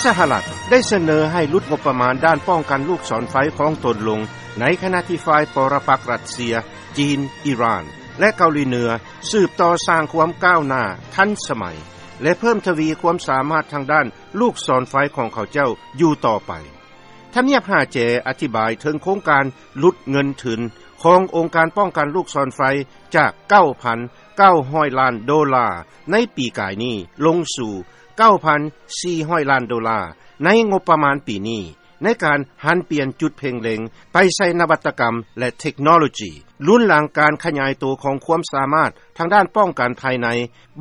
ສະຫະລັດໄດ້ສະເໜີໃຫ້ຫຼຸດງົບປະມານດ້ານປ້ອງກັນລູກສອນໄຟຂອງຕົນລົງ ໃນຂະນະທີ່ຝ່າຍປໍລະປັກຣັດເຊຍ, ຈີນ, ອີຣານ ແລະ ເກົາຫຼີເໜືອ ສືບຕໍ່ສ້າງຄວາມກ້າວໜ້າທັນສະໄໝ ແລະ ເພີ່ມທະວີຄວາມສາມາດທາງດ້ານລູກສອນໄຟຂອງເຂົາເຈົ້າຢູ່ຕໍ່ໄປ. ທຳນຽບຫາແຈອະທິບາຍເຖິງໂຄງການຫຼຸດເງິນທຶນຂອງອົງການປ້ອງກັນລູກສອນໄຟ ຈາກ ເກົ້າພັນເກົ້າຮ້ອຍລ້ານໂດລາໃນປີກາຍນີ້ ລົງສູ່ ເກົ້າພັນສີ່ຮ້ອຍລ້ານໂດລາໃນງົບປະມານປີນີ້ ໃນການຫັນປ່ຽນຈຸດເພັ່ງເລັງໄປໃສ່ນະວັດຕະກຳ ແລະ ເທັກໂນໂລຈີ ລຸນຫຼັງການຂະຫຍາຍໂຕຂອງຄວາມສາມາດທາງດ້ານປ້ອງກັນພາຍໃນ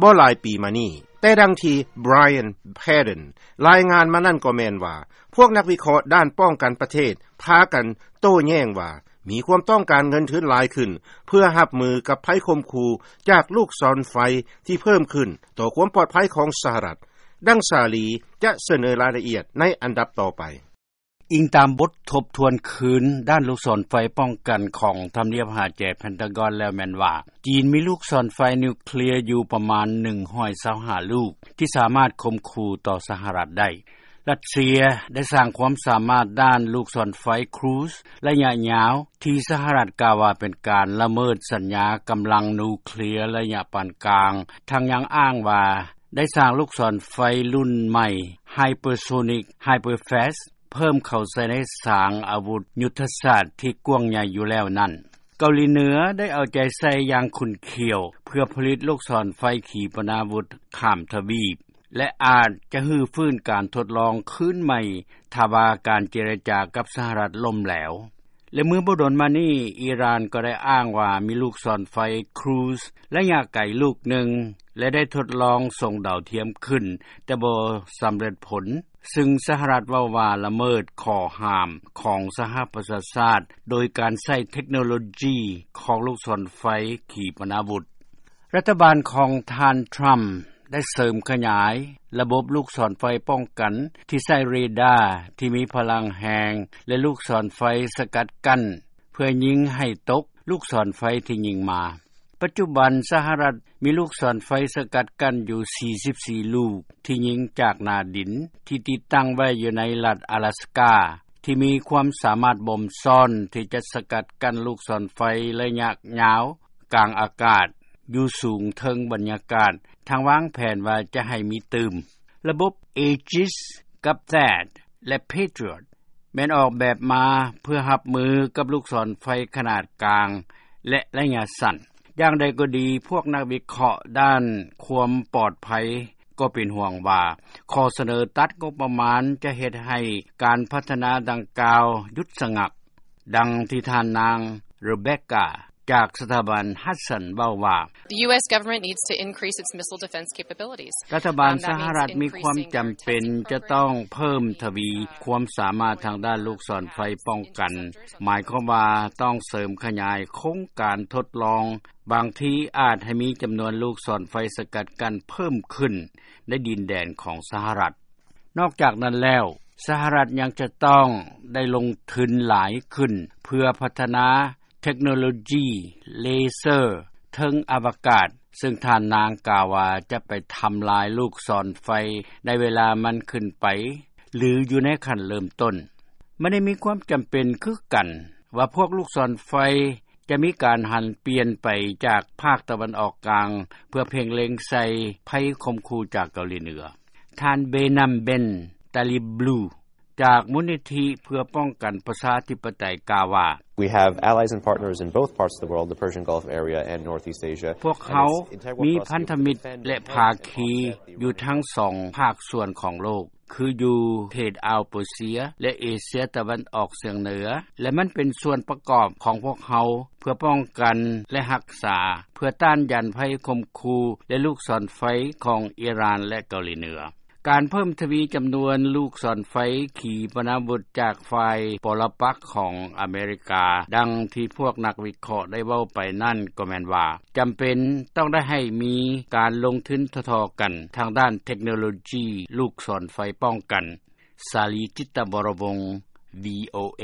ບໍ່ຫຼາຍປີມານີ້. ແຕ່ດັ່ງທີ່ Brian Padden ລາຍງານມານັ້ນກໍແມ່ນວ່າ ພວກນັກວິເຄາະດ້ານປ້ອງກັນປະເທດພາກັນໂຕ້ແຍ້ງວ່າ ມີຄວາມຕ້ອງການເງິນທຶນຫຼາຍຂຶ້ນ ເພື່ອຮັບມືກັບໄພຂົ່ມຂູ່ຈາກລູກສອນໄຟທີ່ເພີ່ມຂຶ້ນຕໍ່ຄວາມປອດໄພຂອງສະຫະລັດ. ດັ່ງສາລີຈະສະເໜີລາຍລະອຽດໃນອັນດັບຕໍ່ໄປ. ອີງຕາມບົດທົບທວນຄືນດ້ານລູກສອນໄຟປ້ອງກັນຂອງທຳນຽບຫາແຈ Pentagon ແລ້ວແມ່ນວ່າ ຈີນມີລູກສອນໄຟນິວເຄລຍຢູ່ປະມານໜຶ່ງຮ້ອຍຊາວຫ້າລູກ ທີ່ສາມາດຂົ່ມຂູ່ຕໍ່ສະຫະລັດໄດ້. ຣັດເຊຍໄດ້ສ້າງຄວາມສາມາດດ້ານລູກສອນໄຟ Cruise ໄລຍະຍາວ ທີ່ສະຫະລັດກ່າວວ່າເປັນການລະເມີດສັນຍາກຳລັງນິວເຄລຍໄລຍະປານກາງ, ທັງຍັງອ້າງວ່າໄດ້ສ້າງລູກສອນໄຟລຸ້ນໃໝ່ Hypersonic Hyperfast ເພີ່ມເຂົ້າໃສ່ໃນສາງອາວຸດຍຸດທະສາດທີ່ກວ້າງໃຫຍ່ຢູ່ແລ້ວນັ້ນ. ເກົາຫຼີເໜືອໄດ້ເອົາໃຈໃສ່ຢ່າງຂຸ້ນຂ້ຽວ ເພື່ອຜະລິດລູກສອນໄຟຂີປະນາວຸດຂ້າມທະວີບ ແລະ ອາດຈະຮື້ຟື້ນການທົດລອງຄືນໃໝ່ ຖ້າວ່າການເຈລະຈາກັບສະຫະລັດລົ້ມແຫຼວ. ແລະ ເມື່ອບໍ່ດົນມານີ້ ອີຣານກໍໄດ້ອ້າງວ່າມີລູກສອນໄຟ Cruise ໄລຍະໄກລູກໜຶ່ງ ແລະ ໄດ້ທົດລອງສົ່ງດາວທຽມຂຶ້ນ ແຕ່ບໍ່ສຳເລັດຜົນ, ຊຶ່ງສະຫະລັດເວົ້າວ່າລະເມີດຂໍ້ຫ້າມຂອງສະຫະປະຊາຊາດ ໂດຍການໃຊ້ເທັກໂນໂລຈີຂອງລູກສອນໄຟຂີປະນາວຸດ. ລັດຖະບານຂອງທ່ານ Trump ໄດ້ເສີມຂະຫຍາຍລະບົບລູກສອນໄຟປ້ອງກັນທີ່ໃຊ້ເຣດາທີ່ມີພະລັງແຮງ ແລະ ລູກສອນໄຟສະກັດກັ້ນ ເພື່ອຍິງໃຫ້ຕົກລູກສອນໄຟທີ່ຍິງມາ. ປັດຈຸບັນສະຫະລັດມີລູກສອນໄຟສະກັດກັ້ນຢູ່ສີ່ສິບສີ່ລູກ ທີ່ຍິງຈາກໜ້າດິນ ທີ່ຕິດຕັ້ງໄວ້ຢູ່ໃນລັດອາລາສກາ ທີ່ມີຄວາມສາມາດບົ່ມຊ້ອນທີ່ຈະສະກັດກັ້ນລູກສອນໄຟໄລຍະຍາວ ກາງອາກາດ ຢູ່ສູງເທິງບັນຍາກາດ, ທາງວາງແຜນວ່າຈະໃຫ້ມີຕື່ມ. ລະບົບ Aegis ກັບ THAAD ແລະ Patriot ແມ່ນອອກແບບມາເພື່ອຮັບມືກັບລູກສອນໄຟຂະໜາດກາງ ແລະ ໄລຍະສັ້ນ. ຢ່າງໃດກໍດີ, ພວກນັກວິເຄາະດ້ານຄວາມປອດໄພກໍເປັນຫ່ວງວ່າ ຂໍ້ສະເໜີຕັດງົບປະມານຈະເຮັດໃຫ້ການພັດທະນາດັ່ງກ່າວຢຸດສະງັກ. ດັ່ງທີ່ທ່ານນາງ Rebecca ຈາກສະຖາບັນ Hudson ເວົ້າວ່າ, The U S government needs to increase its missile defense capabilities. ລັດຖະບານສະຫະລັດມີຄວາມຈຳເປັນຈະຕ້ອງເພີ່ມທະວີຄວາມສາມາດທາງດ້ານລູກສອນໄຟປ້ອງກັນ, ໝາຍຄວາມວ່າຕ້ອງເສີມຂະຫຍາຍໂຄງການທົດລອງ, ບາງທີອາດໃຫ້ມີຈຳນວນລູກສອນໄຟສະກັດກັ້ນເພີ່ມຂຶ້ນໃນດິນແດນຂອງສະຫະລັດ. ນອກຈາກນັ້ນແລ້ວ, ສະຫະລັດຍັງຈະຕ້ອງໄດ້ລົງທຶນຫຼາຍຂຶ້ນ ເພື່ອພັດທະນາເທັກໂນໂລຈີເລເຊີເທິງອະວະກາດ, ເຊິ່ງທ່ານນາງກ່າວວ່າຈະໄປທຳລາຍລູກສອນໄຟໃນເວລາມັນຂຶ້ນໄປ ຫຼື ຢູ່ໃນຂັ້ນເລີ່ມຕົ້ນ. ມັນໄດ້ມີຄວາມຈຳເປັນຄືກັນວ່າພວກລູກສອນໄຟ ຈະມີການຫັນປ່ຽນໄປຈາກພາກຕາເວັນອອກກາງ ເພື່ອເພັ່ງເລັງໃສ່ໄພຂົ່ມຂູ່ຈາກເກົາຫຼີເໜືອ. ທ່ານ Behnam Ben Taleblu ຈາກມູນນິທິເພື່ອປ້ອງກັນປະຊາທິປະໄຕ ກ່າວວ່າ, We have allies and partners in both parts of the world, the Persian Gulf area and Northeast Asia. ພວກເຮົາມີພັນທະມິດ ແລະ ພາຄີຢູ່ທັງສອງພາກສ່ວນຂອງໂລກ ຄືຢູ່ເຂດອ່າວເປີເຊຍ ແລະ ເອເຊຍຕາເວັນອອກສຽງເໜືອ ແລະ ມັນເປັນສ່ວນປະກອບຂອງພວກເຮົາ ເພື່ອປ້ອງກັນ ແລະ ຮັກສາ ເພື່ອຕ້ານຢານໄພຂົ່ມຂູ່ ແລະ ລູກສອນໄຟຂອງອີຣານ ແລະ ເກົາຫຼີເໜືອ. ການເພີ່ມທະວີຈຳນວນລູກສອນໄຟຂີປະນາວຸດຈາກຝ່າຍປໍລະປັກຂອງອາເມລິກາ, ດັ່ງທີ່ພວກນັກວິເຄາະໄດ້ເວົ້າໄປນັ້ນ ກໍແມ່ນວ່າ ຈຳເປັນຕ້ອງໄດ້ໃຫ້ມີການລົງທຶນທໍ່ໆກັນທາງດ້ານເທັກໂນໂລຈີລູກສອນໄຟປ້ອງກັນ. ສາລີ ຈິດຕະວໍລະວົງ ວີໂອເອ.